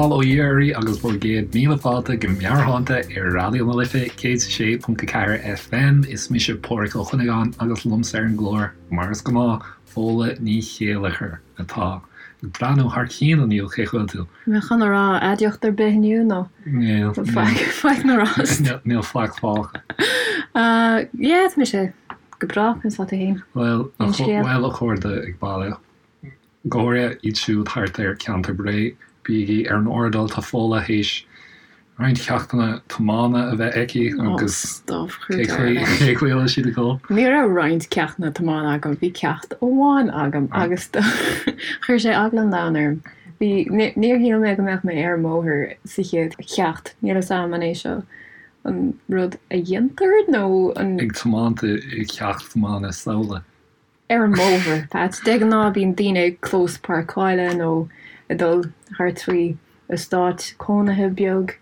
Bail ó Dhia oraibh agus bhur gcéad míle fáilte go Meabhairshláinte ar Raidió na Life 106.4 FM. Is mise Pádhraic Ó Cuinneagáin agus liomsa ar an gclár, mar is gnáth, Fódhla Ní Chéilleachair atá ag breathnú thar cionn inniu, cén chaoi a bhfuil tú? Mé chun a rá aidiacht ar bith inniu nó Níl, faic, faic na rás. Níl faic fágtha. Yeah, tá mise go breá, conas tá tú féin? Bhuel, bhuel a chairde ag baile. Go háirithe iad siúd thart ar cheantar Bhré, bígí ar an airdeall, tá Fódhla théis roinnt ceachtanna tiomána a bheith aici agus cé chaoi a bhfuil siad ag dul? Ní raibh roinnt ceachtanna tiomána agam, bhí ceacht amháin agam agus chuir sé eagla an domhain orm. Bhí, níor shíl mé go mbeadh mé ar an mbóthar sa chéad cheacht, níl fhios a'm an é seo an rud a dhéantar nó an. Ag tiomáint i gceacht tiomána samhla. ar an mbóthar, Pat. De ghnáth bíonn daoine ag clós páirceála nó ag dul thart faoi eastát cónaithe beag.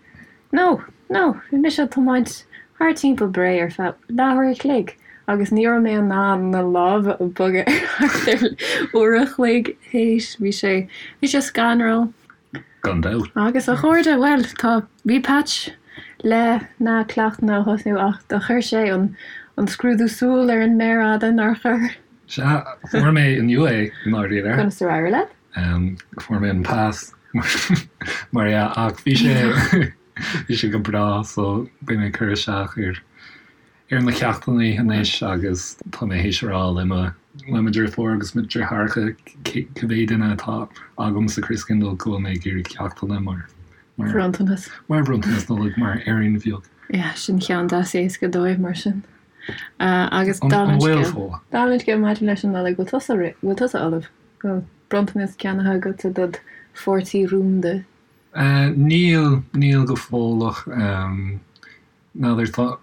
No, no, bhí mise ag tiomáint thart timpeall Bré ar feadh leathuair a chloig agus ní raibh mé in ann na lámha a bhogadh ar thart ar uair a chloig théis. Bhí sé, bhí sé scanrúil. Gan dabht. Agus a chairde, bhuel, tá, bhí Patch le na ceachtanna a thosnú ach do chuir sé an, an scrúdú súl ar an méar fhada, nár chuir? Sea, fuair mé inniu é, i ndáiríre. Conas ar éirigh leat? Fuair mé an pas, mar dhea, ach bhí sé, bhí sé go breá, so beidh mé ag cur isteach ar, ar na ceachtanna anois agus tá mé théis a rá le mo le mo dheirfiúr agus mo dheartháireacha cibé duine atá agam sa Christkindl go bhfuil mé ag iarraidh ceachtanna mar mar bhronntanas. Mar bhronntanas Nollag mar fhéirín bheag. Yeah, sin ceann deas éasca dóibh mar sin. Agus An dála an bhfuil scéil. Fódhla? Dála an scéil maidir leis an Nollaig, bhfuil tusa bhfuil tusa ullamh? Bhfuil bronntanas ceannaithe agatsa dod pháirtí rúnda? Níl, níl go fóilleach. N'fheadar,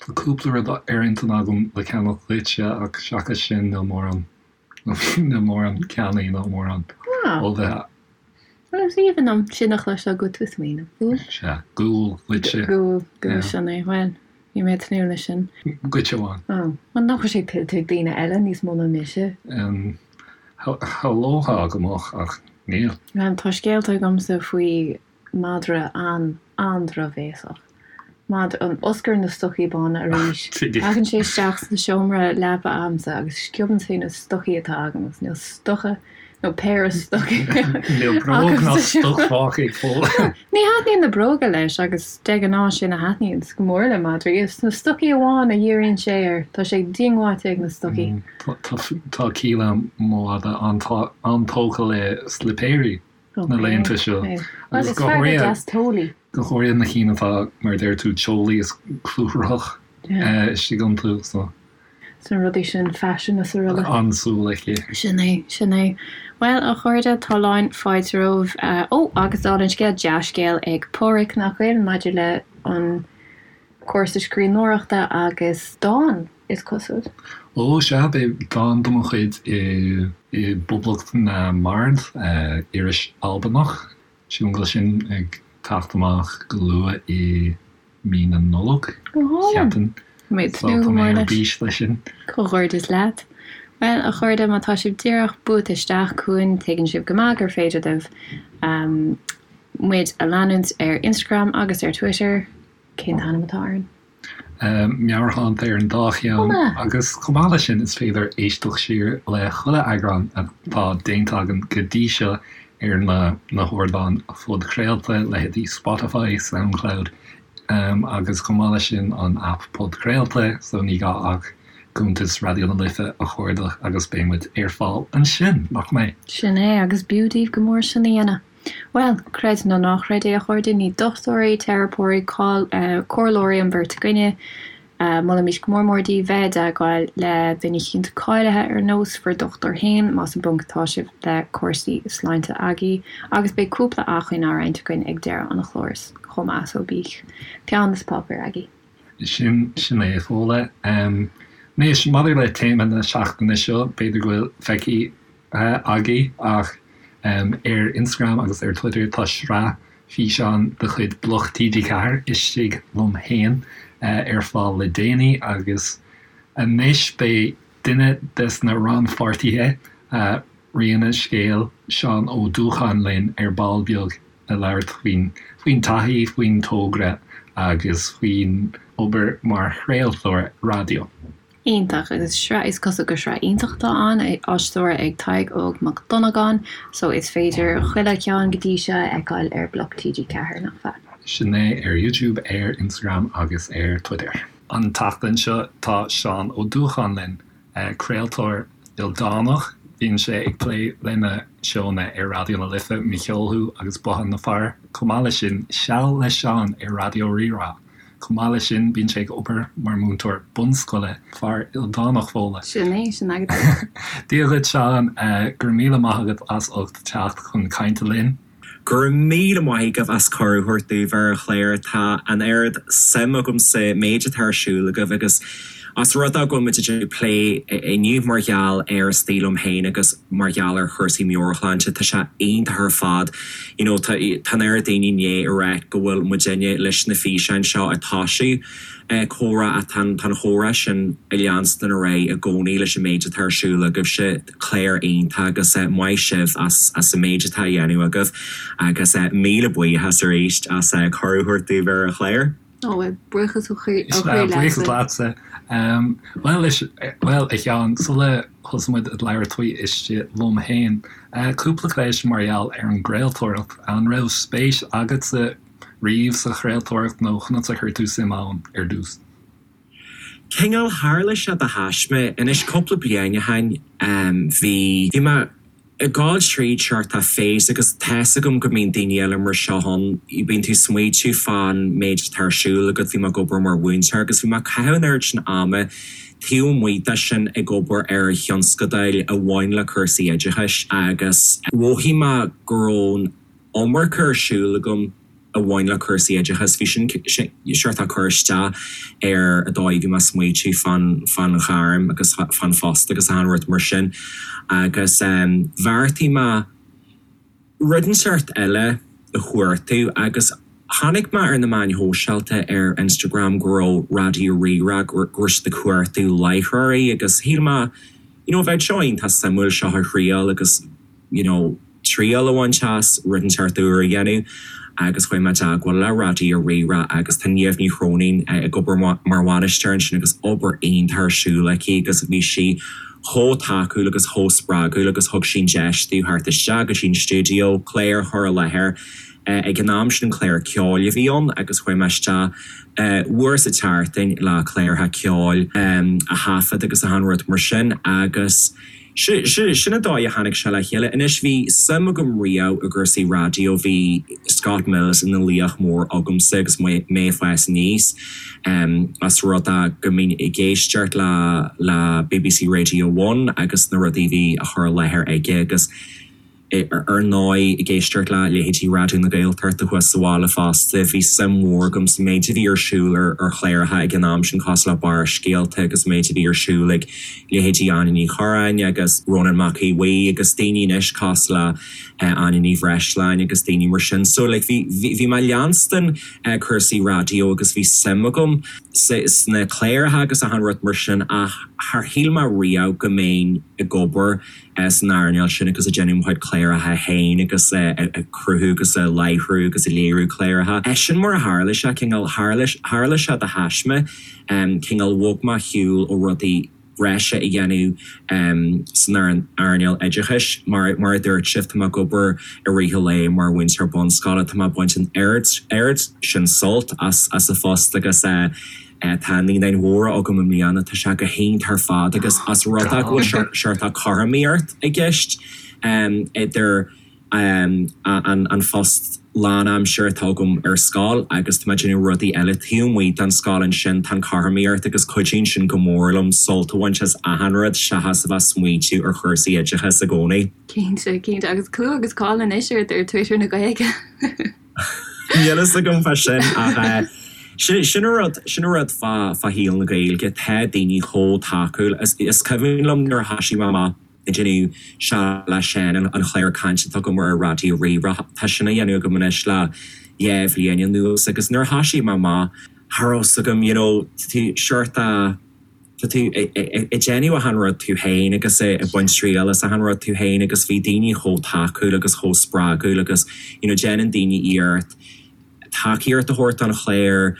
tá cúpla rud ar intinn agam le ceannach duitse ach seachas sin níl mórán, níl mórán ceannaithe ná mórán ullmhaithe. Bhuel, is aoibhinn liom sin a chloisteáil go bhfuil tú ag smaoineamh fúm. Sea, gual duitse. Gual, gual, sin é. Bhuel, bhí mé ag tnúth leis sin. Duitse amháin. Ó, bhuel nach bhfuil sé tuillte ag daoine eile níos mó ná mise? Shamhlófá go mbeadh ach níl. Bhuel, tá scéalta agamsa faoi Madra an, an-drochbhéasach. Madra, an Oscar na stocaí bána arís. Tagann sé isteach sa seomra leapa a'msa agus sciobann sé na stocaí atá agam agus níl stoca nó péire stocaí Níl bróg ná stoc fágtha ag Fódhla. Ní thaitníonn na bróga leis agus de ghnáth sin a thaitníonns go mór le madraí. Is na stocaí amháin a dhíríonn sé air. Tá sé diongbháilte ag na stocaí. Tá Kíla mo mhadra an-tógtha le slipéirí. na laethanta seo. Agus go háirithe, go háirithe na cinn atá, mar a deir tú, teolaí is clúmhach istigh iontu. So. Sna rudaí sin, faisean is araile. An-súil aici. Sin é, sin é. Bhuel, a chairde, tá lán fáilte romhaibh. Ó, agus dála an scéil, dea-scéal ag Pádhraic, nach bhfuil, maidir le an cúrsa scríbhneoireachta agus dán. is cosúil. Ó, sea, beidh dán de mo chuid i bPoblacht na mBard, iris Albanach. Sílim go bhfuil sin ag teacht amach go luath i mí na Nollag, Go hálainn! cheapfainn. Tá mé ag So tnúth tá go mé mór ar leis. bís leis sin. Comhghairdeas leat. Bhuel, a chairde, má tá sibh díreach buailte isteach chugainn, tuigeann sibh go maith gur féidir libh muid a leanúint ar Instagram agus ar Twitter. Cén t-ainm atá orainn? Meabhairshláinte ar an dá cheann agus chomh maith leis sin is féidir éisteacht siar le chuile eagrán atá déanta againn go dtí seo ar na na hardáin phodchraolta, leithéidí Spotify, Soundcloud agus chomh maith leis sin an aip podchraolta so ní gá ach cuntas Raidió na Life a chuardach agus beidh muid ar fáil ansin, nach mbeidh? Sin é agus b'fhiú daoibh go mór sin a dhéanamh. Bhuel, creid nó ná creid é a chairde, ní dochtúirí, teiripeoirí, comhairleoirí an bheirt againne. Molaimís go mór mór daoibh bheith i dteagmháil le duine eicínt cáilithe ar nós bhur dochtúir féin más i bponc atá sibh le cúrsaí sláinte agaibh. Agus beidh cúpla acmhainn á roinnt againn ag deireadh an chláir chomh maith so bíodh peann is páipéar agaibh. Sin, sin é, a Fhódhla. Anois, maidir le téama na seachtaine seo, b'fhéidir go bhfuil feicthe agaibh ach ar Instagram agus ar Twitter tá sraith físeán de chuid Bloc TG4, Istigh Liom Fhéin, ar fáil le déanaí agus anois beidh duine des na rannpháirtithe, Rí an Scéil, Seán Ó Dúcháin linn ar ball beag. ag labhairt faoin faoin taithí, faoin togra agus faoin obair mar chraoltóir raidió. Iontach, agus sraith, is cosúil gur sraith iontach atá ann, á stiúradh ag Tadhg Óg Mac Dhonnagáin, so is féidir chuile cheann go dtí seo a fheiceáil ar Bloc TG4, nach ea? Sin é, ar YouTube, ar Instagram agus ar Twitter. An tseachtain seo tá Seán Ó Dúcháin linn, craoltóir ildánach. Bíonn sé ag plé lena seónna ar Raidió na Life, Mo Cheol Thú agus Bothán na Fear. Chomh maith leis sin, Seal le Seán ar Raidió Rí-Rá. Chomh maith leis sin, bíonn sé ag obair mar mhúinteoir bunscoile, fear ildánach Fódhla. Sin é, sin agat é. Dia dhuit Seán, go raibh míle maith agat as ucht teacht chun cainte linn. Go raibh míle maith agaibh as cuireadh a thabhairt domh ar an chlár. Tá an oiread suim agam sa méid atá ar siúl agaibh agus os rud é go bhfuil muid ag déanamh plé inniu mar gheall ar Istigh Liom Féin agus mar gheall ar chúrsaí meabhairshláinte, tá sé iontach ar fad. You know, tá tá an oiread daoine i ndiaidh a ráit go bhfuil muidinne leis na físeáin seo ag toisiú comhrá ach tá an tá an chomhrá sin ag leanstan ar aghaidh i gcónaí leis an méid atá ar siúl agaibhse. Clár iontach agus maith sibh as as an méid atá á dhéanamh agaibh agus míle buíochas arís as cuireadh a thabhairt domh ar an chlár. Ó, bhuel, buíochas ó chroí leatsa. Buíochas leatsa. Bhuel, bhuel, a Sheáin, sula thosaigh muid ag labhairt faoi Istigh Liom Féin, cúpla ceist mar gheall ar an gcraoltóireacht. An raibh spéis agatsa riamh sa chraoltóireacht nó conas a chuir tú suim ann ar dtús? Cineál, tharla sé de thaisme. Anois, cúpla bliain ó shin, bhí, bhí mé ag gabháil tríd seort of phase agus tá's agam go mbíonn daoine eile mar seo ann, bíonn tú ag smaoitiú fán méid atá ar siúl agat, bhí mé ag obair mar mhúinteoir agus bhí mé ag caitheamh an oiread sin ama taobh amuigh de sin ag obair ar thionscadail a bhain le cúrsaí oideachais agus mhothaigh mé go raibh an iomarca ar siúl agam. a bhain le cúrsaí oideachais. Bhí sin seort ag cur isteach ar an dóigh a bhí mé ag smaoitiú fán fán ghairm agus fán phost agus achan rud mar sin. Agus bheartaigh mé rud inteacht eile a chuartú agus chonaic mé ar na meáin shóisialta ar Instagram go raibh Raidió Rí-Rá, go raibh siad ag cuartú láithreoirí agus shíl mé you know bheadh seo iontach suimiúil seo a thriail agus you know, triail a bhaint as, rud inteacht úr a dhéanamh agus chuaigh mé i dteagmháil le Raidió Rí-Rá agus tá Niamh Ní Chróinín ag obair mar bhainisteoir ansin agus obair iontach ar siúl aici agus bhí sí chomh tacúil agus chomh spreagúil agus thug sí an deis domh theacht isteach go dtí an stiúideo, clár a chur i láthair. Ag an am sin clár ceoil a bhí ann agus chuaigh mé isteach uair sa tseachtain le cláracha ceoil a thaifead agus achan rud mar sin agus Sin an dóigh a tháinig sé le chéile. Anois, bhí suim agam riamh i gcúrsaí raidió, bhí Scott Mills ina laoch mór agamsa agus mé ag fás aníos, os rud é go mbínn ag éisteacht le le BBC Radio One agus na rudaí a bhí á chur i láthair aige agus, Ar ndóigh, ag éisteacht le leithéidí Raidió na Gaeltachta thuas sa bhaile fosta, bhí suim mhór agam sa méid a bhí ar siúl ar chláracha ag an am sin cosúil le Barrscéalta agus an méid a bhí ar siúl ag leithéidí Áine Ní Churráin agus Rónán Mac Aodha Bhuí agus daoine anois cosúil le Áine Ní Bhreisleáin agus daoine mar sin. So like bhí bhí mé ag leanstan cúrsaí raidió agus bhí suim agam sna cláracha agus achan rud mar sin ach char shíl mé riamh go mbeinn ag obair san earnáil sin agus ag déanamh mo chuid cláracha féin agus ag cruthú agus ag láithriú agus ag léiriú cláracha. Sin mar a tharla sé, cineál, tharla sé de thaisme, cineál bhog mé ar shiúl ó rudaí breise a dhéanamh san earnáil oideachais. Mar mar a dúirt sibh, tá mé ag obair i rith an lae mar mhúinteoir bunscoile, tá mé ag baint an oiread sin sult as an phost agus Tá naíonáin mhóra agam i mbliana, tá sé go hiontach ar fad agus os rud é go bhfuil seort cothromaíocht i gceist idir an phost lánaimseartha atá agam ar scoil agus tá mé ag déanamh rudaí eile taobh amuigh den scoil ansin, tá an chothromaíocht agus cuidíonn sin go mór liom sult a bhaint as achan rud seachas a bheith ag smaointiú ar chúrsaí oideachais i gcónaí. Cinnte, cinnte. Agus clú agus cáil anois ort ar Twitter na Gaeilge. Níl fhios agam fá sin ach sin an rud, sin an rud fá shaol na Gaeilge, tá daoine chomh tacúil. Is cuimhin liom nuair a thoisigh mé amach ag déanamh Seal le Seán, an chlár cainte atá agam ar Raidió Rí-Rá, tá sin á dhéanamh agam anois le 2 bhliain anuas agus nuair a thoisigh mé amach, cha raibh fhios agam, you know, seort a. Tá tú ag déanamh achan rud tú féin agus ag baint triail as achan rud tú féin agus bhí daoine chomh tacúil agus chomh spreagúil agus you know déanann daoine iarracht tacaíocht a thabhairt don chlár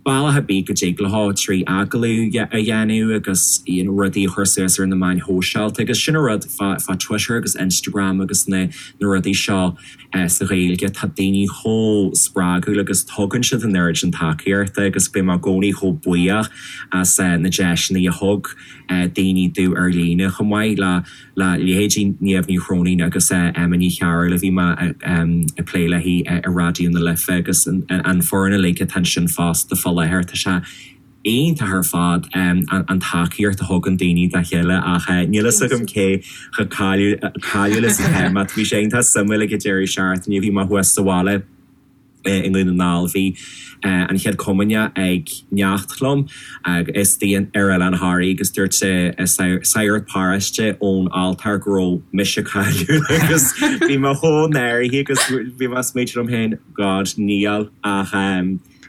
bealach ar bith go dtig leo trí agallamh a dhéanamh agus you know rudaí a chur suas ar na meáin shóisialta agus sin an rud fá fá Twitter agus Instagram agus na na rudaí seo Sa Ghaeilge, tá daoine chomh spreagúil agus tugann siad an oiread sin tacaíochta agus beidh mé i gcónaí chomh buíoch as na deiseanna a thug daoine domh ar líne chomh maith le le leithéidí Niamh Ní Chróinín agus Emma Ní Chearúil a bhí mé ag plé léi i Raidió na Life agus an foireann uilig atá ansin fosta fá láthair. Tá sé iontach ar fad an tacaíocht a thugann daoine dá chéile ach níl fhios agam cé chomh cáiliúil is atá mé. Bhí sé iontach suimiúil ag an deireadh seachtaine, bhí mé thuas sa bhaile i nDún na nGall, bhí an Chéad Chomaoineach ag neacht liom istigh ar Oileán Thoraí agus dúirt sagart paróiste ón altóir go raibh mise cáiliúil agus bhí mé chomh náirithe agus bhí mé ag smaointiú liom féin, God, níl ach.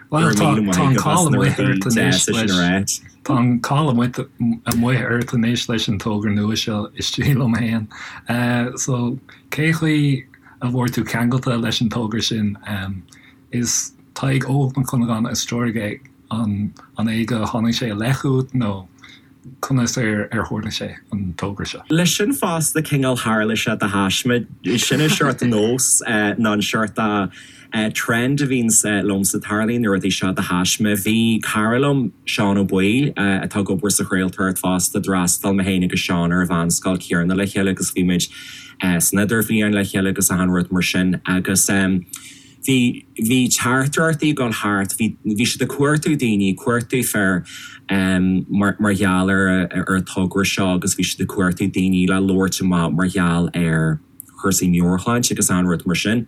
Bhuel, tá an cáil amuigh ort anois leis, tá an cáil amuigh ort anois leis an togra nua seo, Istigh Liom Féin. So, cé chaoi a bhfuair tú ceangailte leis an togra sin? Is Tadhg Óg Mac Cuinneagáin a stiúraigh é, an é go tháinig sé i leith chugat nó conas ar tharla sé, an togra seo? Leis sin fosta, cineál tharla sé de thaisme. Sin an seort nós nó an seort trend a bhíonns liomsa, tarlaíonn na rudaí seo de thaisme. Bhí cara liom, Seán Ó Baoill, atá ag obair sa chraoltóireacht fosta, d'fhreastail mé féin agus Seán ar an mheánscoil chéanna le chéile agus bhí muid san idirbhliain le chéile agus achan rud mar sin agus bhí, bhí teachtaireachtaí ag dul thart, bhí, bhí siad ag cuartú daoine, cuartú fir mar, mar gheall ar, ar an togra seo agus bhí siad ag cuartú daoine le labhairt amach mar gheall ar chúrsaí meabhairshláinte agus achan rud mar sin.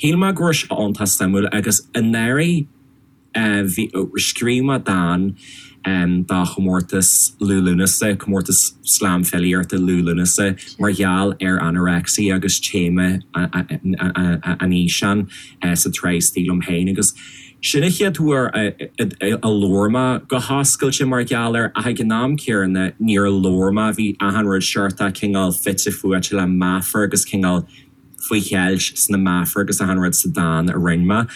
Shíl mé go raibh sé iontach suimiúil agus anuraidh bhí, scríobh mé dán do chomórtas Liú Lúnasa, comórtas slam filíochta Liú Lúnasa mar gheall ar anorexia agus téama an fhíseáin sa tsraith Istigh Liom Féin agus sin an chéad uair a labhair mé go hoscailte mar gheall air ach ag an am céanna níor labhair mé, bhí achan rud seort cineál fite fuaite le meafar agus cineál faoi cheilt sna meafair agus achan rud sa dán a rinne mé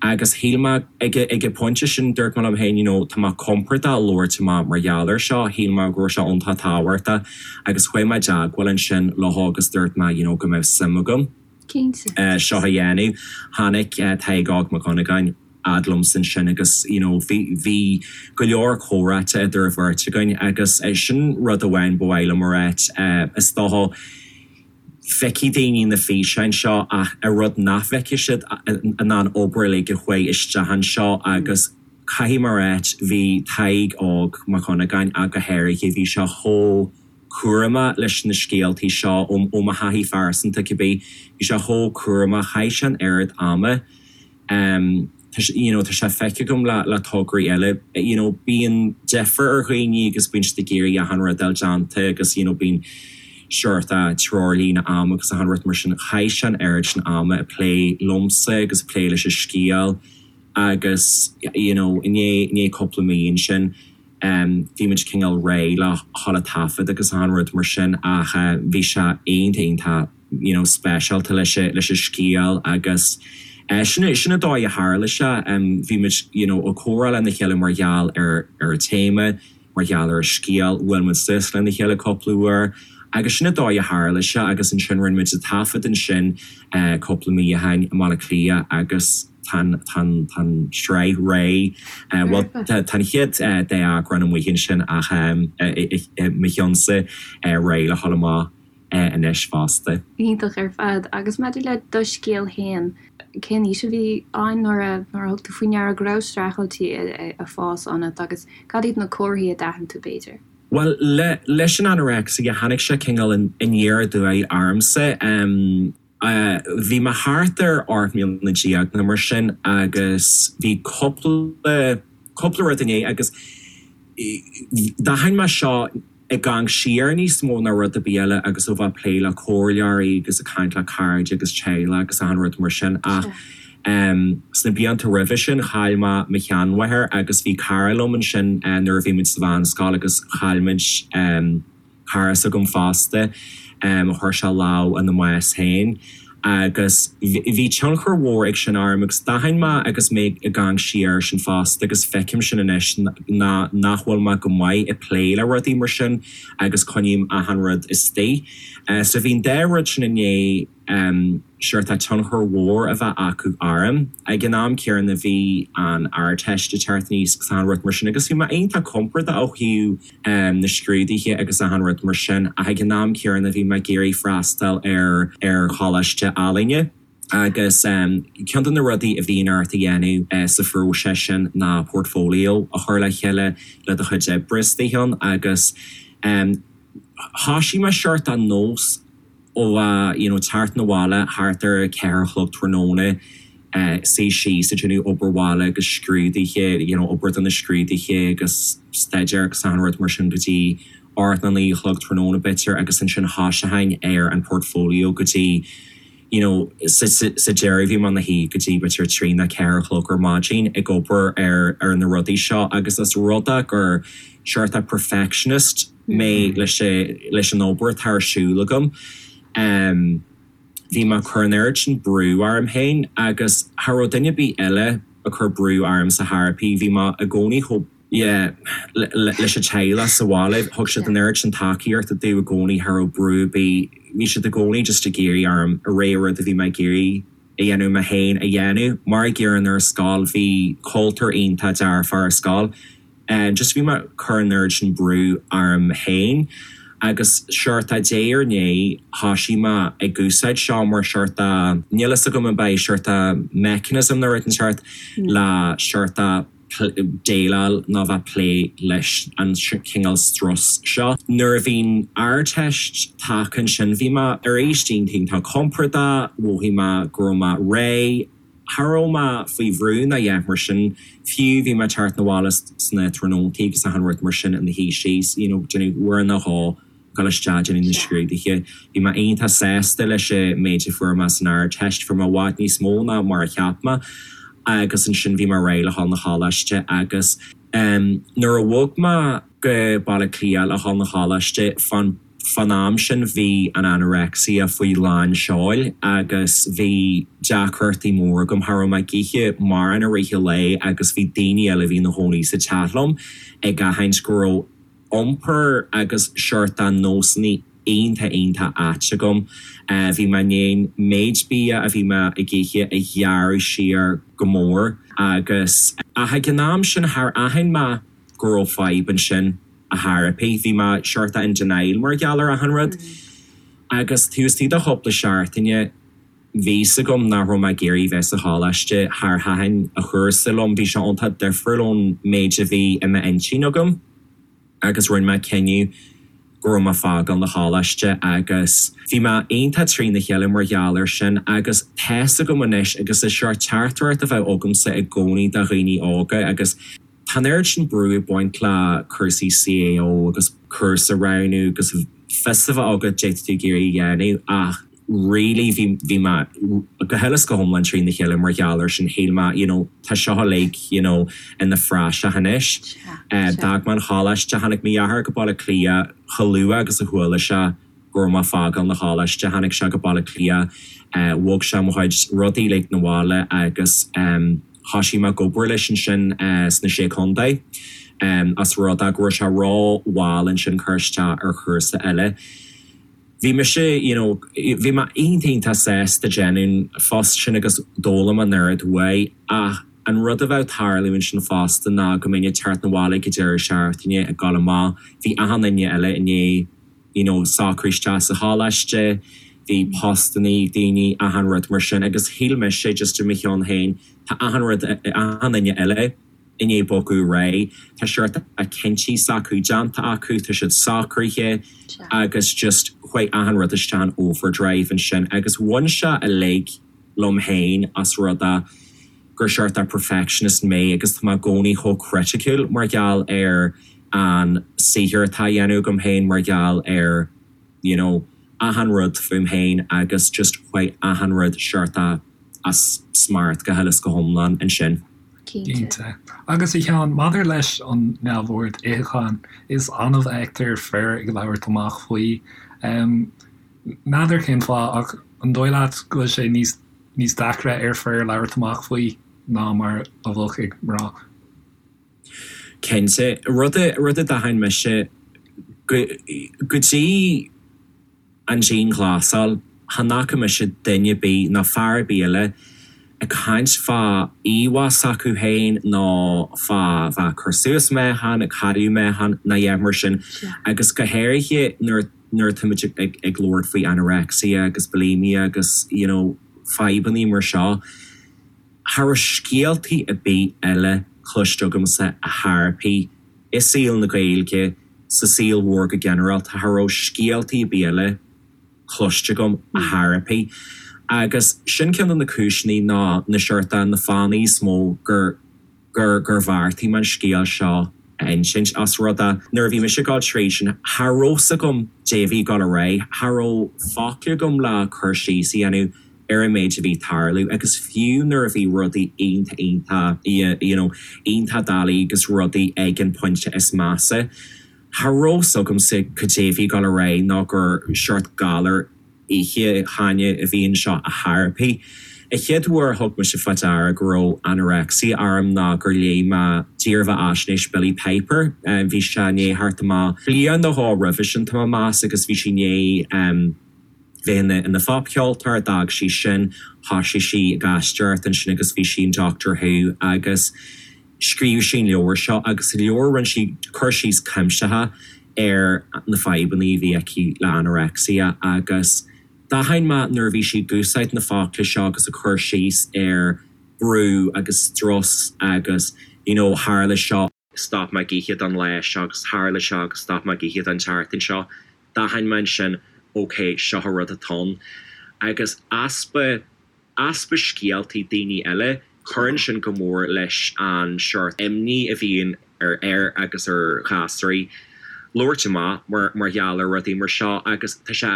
agus shíl mé ag ag an bpointe sin dúirt mé liom féin you know tá mé compordach labhairt amach mar gheall air seo, shíl mé go raibh sé iontach tábhachtach agus chuaigh mé i dteagmháil ansin leo agus dúirt mé you know go mbeadh suim agam seo a dhéanamh. Tháinig Tadhg Óg Mac Dhonnagáin fhad liomsa ansin agus you know bhí bhí go leor comhráite idir an bheirt againn agus sin rud amháin ba mhaith liom a ráit is dócha Feicfidh daoine na físeáin seo ach an rud nach bhfeicfidh siad ná an obair uilig a chuaigh isteach anseo agus caithfidh mé a ráit, bhí Tadhg Óg Mac Dhonnagáin ach go háirithe, bhí sé chomh cúramach leis na scéaltaí seo, ó mo thaithí phearsanta cibé, bhí sé chomh cúramach, chaith sé an oiread ama. Tá sé, you know, tá sé feicthe agam le, le tograí eile, you know, bíonn deifir ar dhaoine agus bíonn siad ag iarraidh achan rud a fháil déanta agus, you know, bíonn seort treoirlíne ama agus achan rud mar sin. Chaith sé an oiread sin ama ag plé liomsa agus ag plé leis an scéal agus, you know, i ndiaidh, i ndiaidh cúpla mí ansin, bhí muid cineál réidh le dhul ag taifead agus achan rud mar sin ach bhí sé iontach, iontach you know speisialta leis an leis an scéal agus sin sin an dóigh a tharla sé. Bhí muid you know ag comhrá lena chéile mar gheall ar ar an téama, mar gheall ar an scéal, bhuail muid suas lena chéile cúpla uair agus sin an dóigh a tharla sé agus ansin rinne muid an taifead ansin cúpla mí ó shin i mBaile Átha Cliath agus tá an tá an tá an tsraith réidh. Bhuel tá tá an chéad dá eagrán amuigh ansin ach i mo cheannsa réidh le dhul amach. anois fosta. Iontach ar fad. Agus maidir le do scéal féin, cén aois a bhí ann nuair a nuair a thug tú faoi ndeara go raibh streachailtí ag fás ionat agus cad iad na comharthaí a d'aithin tú b'fhéidir? Bhuel, le leis an anorexia, tháinig sé cineál aniar aduaidh ormsa. Bhí mé thart ar 18 mbliana nó mar sin agus bhí cúpla, cúpla rud i ndiaidh agus d'aithin mé seo ag amharc siar níos mó ná rud ar bith eile agus ó bheith ag plé le comhairleoirí agus ag caint le cairde agus teaghlach agus achan rud mar sin ach. Sna blianta roimhe sin chaill mé mo sheanmháthair agus bhí cara liom ansin nuair a bhí muid sa mheánscoil agus chaill muid cara s'agam fosta, chuir sé lámh ina mbás féin agus bhí tionchar mhór ag sin orm agus d'aithin mé agus mé ag amharc siar air sin fosta agus feicim sin anois ná nach bhfuil mé go maith ag plé le rudaí mar sin agus coinním achan rud istigh. So bhí an dá rud sin i ndiaidh seort tionchar mhór a bheith acu orm. Ag an am céanna bhí an Ardteist ag teacht aníos agus achan rud mar sin agus bhí mé iontach compordach ó thaobh na scrúduithe agus achan rud mar sin ach ag an am céanna bhí mé ag iarraidh freastal ar ar choláiste ealaíne agus ceann de na rudaí a bhíonn ort a dhéanamh sa phróiseas sin ná portfolio a chur le chéile le do chuid oibre istigh ann agus thoisigh mé seort an nós ó bheith you know teacht 'na bhaile thart ar a ceathair a chlog tráthnóna, suí síos ag déanamh obair bhaile agus scrúduithe, you know obair do na scrúduithe agus staidéar agus achan rud mar sin go dtí ocht nó naoi a chlog tráthnóna b'fhéidir agus ansin thoiseochainn ar an portfolio go dtí you know sa sa deireadh bhí mé ina shuí go dtí b'fhéidir trí nó ceathair a chlog ar maidin ag obair ar ar na rudaí seo agus is rud é gur seort perfectionist mé leis an obair atá ar siúl agam. Bhí mé ag cur an oiread sin brú orm féin agus cha raibh duine ar bith eile ag cur brú orm sa theiripí, bhí mé i gcónaí chomh, yeah, leis an teaghlach sa bhaile, thug siad an oiread sin tacaíochta domh i gcónaí, cha raibh brú ar bith, bhí siad i gcónaí just ag iarraidh orm a rá rud a bhí mé ag iarraidh a dhéanamh mé féin a dhéanamh. Mar a gcéanna ar scoil, bhí cultúr iontach dearfach ar scoil. Just bhí mé ag cur an oiread sin brú orm féin agus seort diaidh ar ndiaidh thoisigh mé ag úsáid seo mar seort níl fhios agam ab é seort mechanism nó rud inteacht le seort déileáil nó bheith plé leis an chineál strus seo. Nuair a bhí an Ardteist tagtha ansin bhí mé arís iontach iontach compordach, mhothaigh mé go raibh mé réidh. Cha raibh mé faoi bhrú ná a dhath mar sin, fiú bhí mé ag teacht 'na bhaile sna tráthnóntaí agus achan rud mar sin ina shuí síos, you know, déanamh uair nó dhó, dul isteach déanamh na scrúduithe. Bhí mé iontach sásta leis an méid a fuair mé san Ardteist, fuair mé i bhfad níos mó ná mar a cheap mé agus ansin bhí mé réidh le dhul 'na choláiste agus em nuair a bhog mé go Baile Átha Cliath le dhul 'na choláiste fán Fán am sin bhí an anorexia faoi lán seoil agus bhí deacrachtaí móra agam. Cha raibh mé ag ithe mórán i rith an lae agus bhí daoine eile a bhí ina gcónaí sa teach liom ag aithint go raibh iompar agus seort de nósanna iontach iontach ait agam. Bhí mé i ndiaidh an méid bia a bhí mé ag ithe a ghearradh siar go mór agus ach ag an am sin char aithin mé go raibh fadhb ansin. a theiripí. Bhí mé seort in denial mar gheall ar achan rud. Agus taobh istigh de chúpla seachtaine bhí 's agam nach raibh mé ag iarraidh bheith sa choláiste. Char thaitin an cúrsa liom, bhí sé iontach difriúil ón méid a bhí i m'intinn agam agus rinne mé cinneadh go raibh mé ag fágáil na choláiste agus bhí mé iontach trína chéile mar gheall air sin agus tá's agam anois agus is seort teachtaireacht a bheadh agamsa i gcónaí do dhaoine óga agus Tá an oiread sin brú ag baint le cúrsaí CAO agus cúrsa a roghnú agus fios a bheith agat caidé atá tú ag iarraidh a dhéanamh ach really bhí bhí mé go huile is go hiomlán trína chéile mar gheall air sin. Shíl mé you know tá seo uilig you know ina phraiseach anois. D'fhág mé an choláiste, tháinig mo dheartháir go Baile Átha Cliath chomh luath agus a chuala sé go raibh mé ag fágáil na choláiste. Tháinig sé go Baile Átha Cliath, bhog sé mo chuid rudaí uilig 'na bhaile agus thoisigh mé ag obair leis ansin sna Sé Contae as rud é go raibh sé ró-mhall ansin cur isteach ar chúrsa eile. Bhí mise, you know, bhí mé iontach iontach sásta déanamh an phost sin agus d'fhoghlaim an oiread uaidh ach an rud a bheadh ag tarlú ansin fosta ná go mbeinn ag teacht 'na bhaile ag an deireadh seachtaine ag dul amach, bhí achan duine eile i ndiaidh you know, socrú isteach sa choláiste, bhí postanna ag daoine, achan rud mar sin agus shíl mise just i mo cheann féin, tá achan rud, achan duine eile i ndiaidh bogadh ar aghaidh, tá seort cinntí s'acu déanta acu, tá siad socraithe agus just chuaigh achan rud isteach in overdrive ansin agus bhain sé uilig liom féin as rud é gur seort perfectionist mé agus tá mé i gcónaí chomh criticiúil mar gheall ar an saothar atá á dhéanamh agam féin, mar gheall ar you know achan rud fúm féin agus just chuaigh achan rud seort. as smacht go huile is go hiomlán ansin. Cinnte. Agus a Sheáin, maidir leis an neamhord itheacháin, is annamh a fheictear fir ag labhairt amach faoi. N'fheadar cén fáth, ach an dóigh leat go bhfuil sé níos níos deacra ar fir labhairt amach faoi ná mar a bheadh ag mná? Cinnte. Rud a rud a d'aithin mise go go dtí an dianghlasáil, chan fhaca mise duine ar bith ná fear ar bith eile ag caint fá íomhá s'acu féin nó fá bheith ag cur suas meáchan, ag cailleadh meáchan ná a dhath mar sin. Agus go háirithe nuair nuair atáimid ag ag labhairt faoi anorexia agus bulimia agus you know fadhbannaí mar seo, cha raibh scéaltaí ar bith eile cloiste agamsa a theiripí i saol na Gaeilge, sa saol mhór go ginearálta, cha raibh scéaltaí ar bith eile cloiste agam a theiripí. Agus sin ceann de na cúiseanna ná na seort na fáthanna is mó gur gur gur bheartaigh mé an scéal seo a insint. Os rud é, nuair a bhí mise ag dul tríd sin, cha raibh 's agam dé a bhí ag dul ar aghaidh, cha raibh focla agam le cur síos a dhéanamh ar an méid a bhí ag tarlú agus fiú nuair a bhí rudaí iontach iontach you know iontach doiligh agus rudaí ag an pointe is measa, cha raibh 's agamsa cad é a bhí ag dul ar aghaidh nó gur seort galar itheacháin a bhí anseo a theiripí. An chéad uair a thug mise fá deara go raibh anorexia orm ná gur léigh mé dírbheathaisnéis Billie Piper. Bhí sé i ndiaidh theacht amach bliain nó dhó roimhe sin, tá mé ag meas, agus bhí sí i ndiaidh bheith ina phopcheoltóir, d'fhág sí sin, thosaigh sí ag aisteoireacht ansin agus bhí sí in Doctor Who agus scríobh sí an leabhar seo agus sa leabhar rinne sí cur síos cuimsitheach ar na fadhbanna a bhí aici le anorexia agus d'aithin mé nuair a bhí sí ag úsáid na focla seo agus ag cur síos ar brú agus strus agus you know tharla seo, stop mé ag ithe don lá seo agus tharla seo agus stop mé ag ithe don tseachtain seo, d'aithin mé ansin ok seo an rud atá ann agus easpa easpa scéaltaí daoine eile, cuireann sin go mór leis an seort imní a bhíonn ar fhir agus ar ghasúraí labhairt amach mar mar gheall ar rudaí mar seo agus tá sé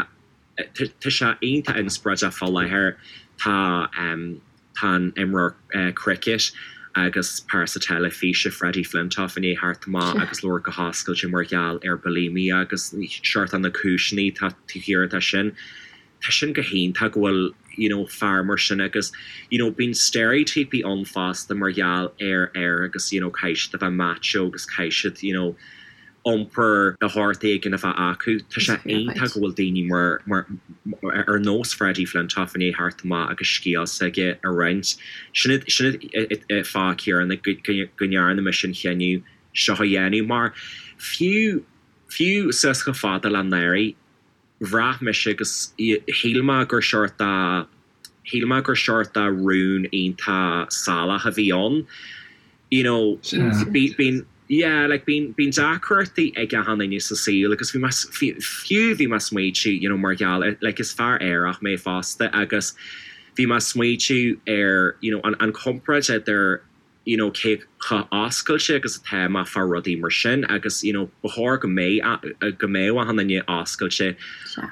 tá sé iontach inspioráideach fá láthair. Tá tá an imreoir cricket agus pearsa teilifíse Freddie Flintoff i ndiaidh theacht amach agus labhairt go hoscailte mar gheall ar bulimia agus seort na cúiseanna atá taobh thiar de sin. Tá sin go hiontach go bhfuil you know fear mar sin agus you know bíonn steiréitíopaí ann fosta mar gheall ar fhir agus you know caithfidh siad a bheith macho agus caithfidh siad you know iompar de shórt éigin a bheith acu. Tá sé iontach go bhfuil daoine mar mar ar nós Freddie Flintoff i ndiaidh theacht amach agus scéal s'aige a roinnt. Sin sin an fáth céanna go go ndearna mise an chinneadh seo a dhéanamh mar fiú fiú suas chomh fada le anuraidh bhraith mise agus shíl mé gur seort de, shíl mé gur seort de rún iontach salach a bhí ann. You know, bíonn, yeah, like bíonn, bíonn deacrachtaí ag achan duine sa saol agus bhí mé, fiú bhí mé ag smaoitiú, you know, mar gheall ar, like is fear aerach mé fosta agus bhí mé ag smaoitiú ar, you know, an, an comparáid idir, you know cé chomh oscailte agus atá mé fá rudaí mar sin agus you know ba chóir go mbeidh go mbeadh achan duine oscailte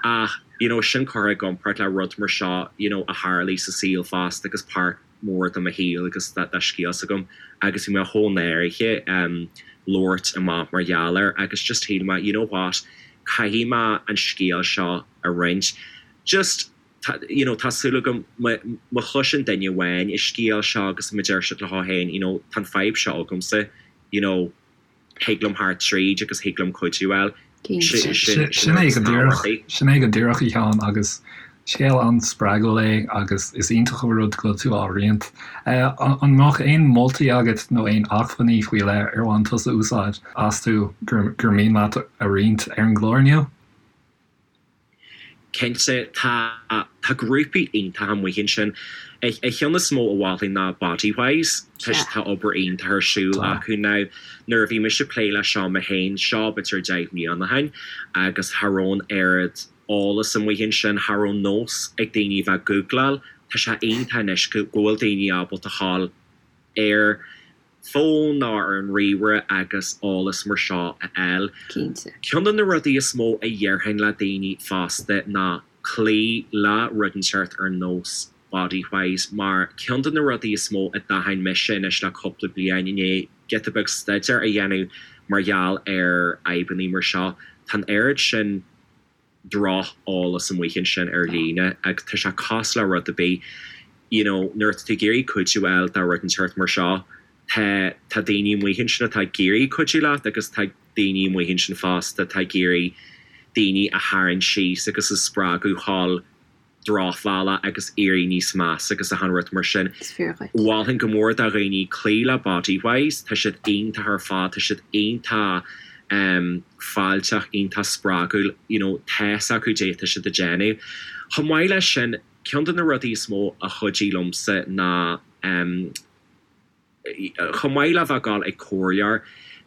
ach you know sin curtha i gcomparáid le rud mar seo you know a tharlaigh sa saol fosta agus páirt mhór de mo shaol agus de scéal s'agam agus bhí mé chomh náirithe um labhairt amach mar gheall air agus just shíl mé you know what caithfidh mé an scéal seo a roinnt just Tá, you know, tá súil agam má chloiseann duine amháin an scéal seo agus má deir siad leo féin, you know, tá an fadhb seo agamsa, you know, thig liom theacht tríd agus thig liom cuidiú a fháil. Sin é go díreach, sin é go díreach a Sheáin agus scéal an-spreagúil é agus is iontach an rud go bhfuil tú á roinnt. An mbeadh aon moltaí agat nó aon acmhainní faoi leith ar bhain tusa úsáid astu gur mian leat a roinnt ar an gclár inniu? Cinnte, tá tá grúpaí iontacha amuigh ansin. An cheann is mó a mholfainn ná Bodywhys. Tá tá obair iontach ar siúl acu. Now, nuair a bhí mise ag plé leis seo mé féin, seo b'fhéidir 10 mbliana ó shin, agus cha raibh an oiread eolas amuigh ansin, cha raibh nós ag daoine a bheith ag gúgláil. Tá sé iontach anois go bhfuil daoine ábalta a ghabháil ar fón nó ar an ríomhaire agus eolas mar seo a fháil. Cinnte. Ceann de na rudaí is mó a dhéarfainn le daoine fosta ná cloí le rud inteacht ar nós. Bodywhys mar ceann de na rudaí is mó a d'aithin mise anois le cúpla bliain i ndiaidh giota beag staidéir a dhéanamh mar gheall ar fhadhbanna mar seo, tá an oiread sin droch-eolas amuigh ansin ar líne agus tá sé cosúil le rud ar bith, you know, nuair atá tú ag iarraidh cuidiú a fháil do rud inteacht mar seo, tá, tá daoine amuigh ansin atá ag iarraidh cuidiú leat agus tá daoine amuigh ansin fosta atá ag iarraidh daoine a tharraingt síos agus a spreagadh dhul drochbhealach agus éirí níos measa agus achan rud mar sin. Is fíor dhuit. Mholfainn go mór do dhaoine cloí le Bodywhys, tá siad iontach ar fad, tá siad iontach fáilteach, iontach spreagúil, you know, tá's acu cad é atá siad ag déanamh. Chomh maith leis sin, ceann de na rudaí is mó a chuidigh liomsa ná chomh maith le bheith ag dul ag comhairleoir,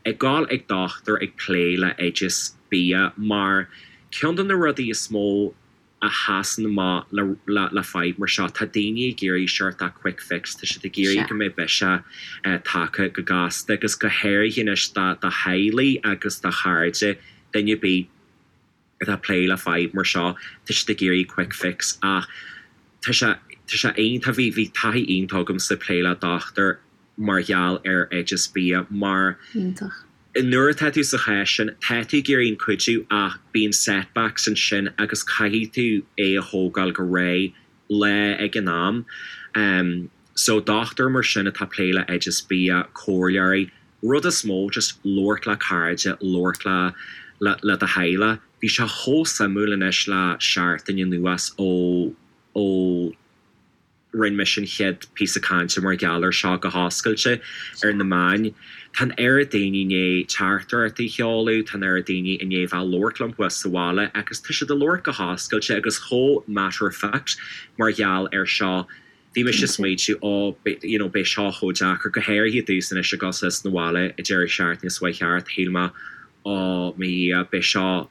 ag dul ag dochtúir ag plé le oideas bia mar ceann de na rudaí is mó a sheasann amach le le fadhb mar seo. Tá daoine ag iarraidh seort de quick fix, tá siad ag iarraidh go mbeidh biseach tagtha go gasta agus go háirithe anois do do theaghlaigh agus do chairde, duine ar bith atá ag plé le fadhb mar seo, tá siad ag iarraidh quick fix ach tá sé tá sé iontach, bhí bhí taithí iontach agamsa ag plé le dochtúir mar gheall ar oideas bia mar Iontach. Nuair atá tú sa chás sin, tá tú ag iarraidh an cuidiú ach bíonn setbacks ansin agus caithfidh tú é a thógáil go réidh, lá ag an am. So dochtúir mar sin atá ag plé le oideas bia, comhairleoirí, rud is mó just labhairt le cairde, labhairt le le do theaghlach. Bhí sé chomh suimiúil anois le seachtain anuas ó ó. Rinne mise an chéad píosa cainte mar gheall air seo go hoscailte ar na meáin. Tá an oiread daoine i ndiaidh teachtaireachtaí a sheoladh, tá an oiread daoine i ndiaidh bheith ag labhairt liom thuas sa bhaile agus tá siad ag labhairt go hoscailte agus chomh matter of fact mar gheall air seo. Bhí mise ag smaointiú, ó, you know, beidh seo chomh deacair, go háirithe domhsa anois ag dul suas 'na bhaile an deireadh seachtaine seo chuaigh thart, shíl mé, ó, mo Dhia, beidh seo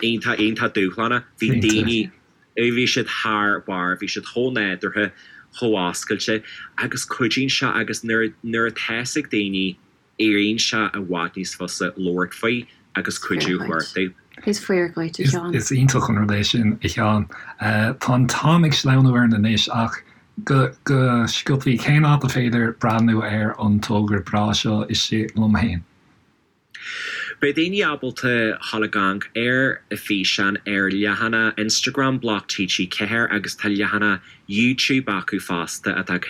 iontach, iontach dúshlánach. Bhí daoine. Bhí siad thar barr, bhí siad chomh nádúrtha, chomh oscailte agus cuidíonn sé agus nuair nuair atá fhios ag daoine, éiríonn sé i bhfad níos fusa labhairt faoi agus cuidiú a chuartú. Is fíor dhuit, a Sheáin. Is iontach an rud é sin, a Sheáin. Tá an t-am ag sleamhnú orainn anois ach go go sciobthaí, cén áit a féidir breathnú ar an togra breá seo Istigh Liom Féin? Beidh daoine ábalta dhul ag amharc ar an físeán ar leathanach Instagram Bloc TG4 agus tá leathanach YouTube acu fosta atá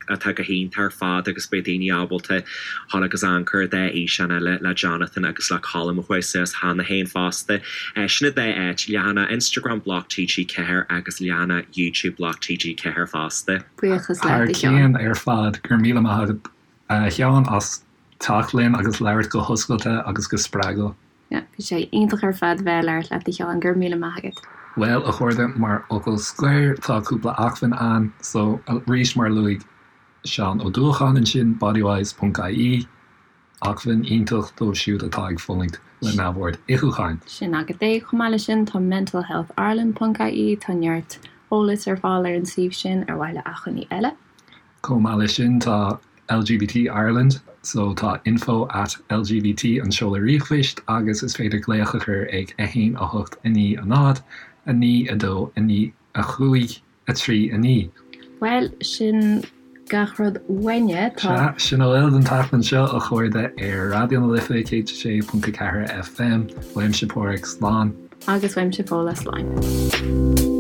atá go hiontach ar fad agus beidh daoine ábalta dhul agus amharc ar an dá fhíseán eile le Jonathan agus le Colm a chuaigh suas cheana féin fosta. Sin an dá áit, leathanach Instagram Bloc TG4 agus leathanach YouTube Bloc TG4 fosta. Buíochas Thar leat, a Sheáin. cionn ar fad, go raibh míle maith agat a Sheáin as teacht linn agus labhairt go hoscailte agus go spreagúil. Yeah, bhí sé iontach ar fad bheith ag labhairt leat a Sheáin, go raibh míle maith agat. Bhuel, a chairde, mar fhocal scoir, tá cúpla acmhainn ann, so arís mar a luaigh Seán Ó Dúlacháin ansin, bodywhys ponc ie, acmhainn iontach dóibh siúd atá ag fulaingt le neamhord itheacháin. Sin agat é. Chomh maith leis sin, tá mentalhealthireland ponc ie, tá neart eolais ar fáil ar an suíomh sin ar mhaithe le acmhainní eile. Chomh maith leis sin tá LGBT Ireland, so tá info at lgbt an seoladh ríomhphoist agus is féidir glaoch a chur ag 1 8 9 0 9 2 9 5 3 9. Bhuel, sin gach rud uainne. Tá. Sea, sin a bhfuil don tseachtain seo, a chairde, ar Raidió na Life 106.4 FM. Uaimse Páraic, slán. Agus uaimse Fódhla, slán.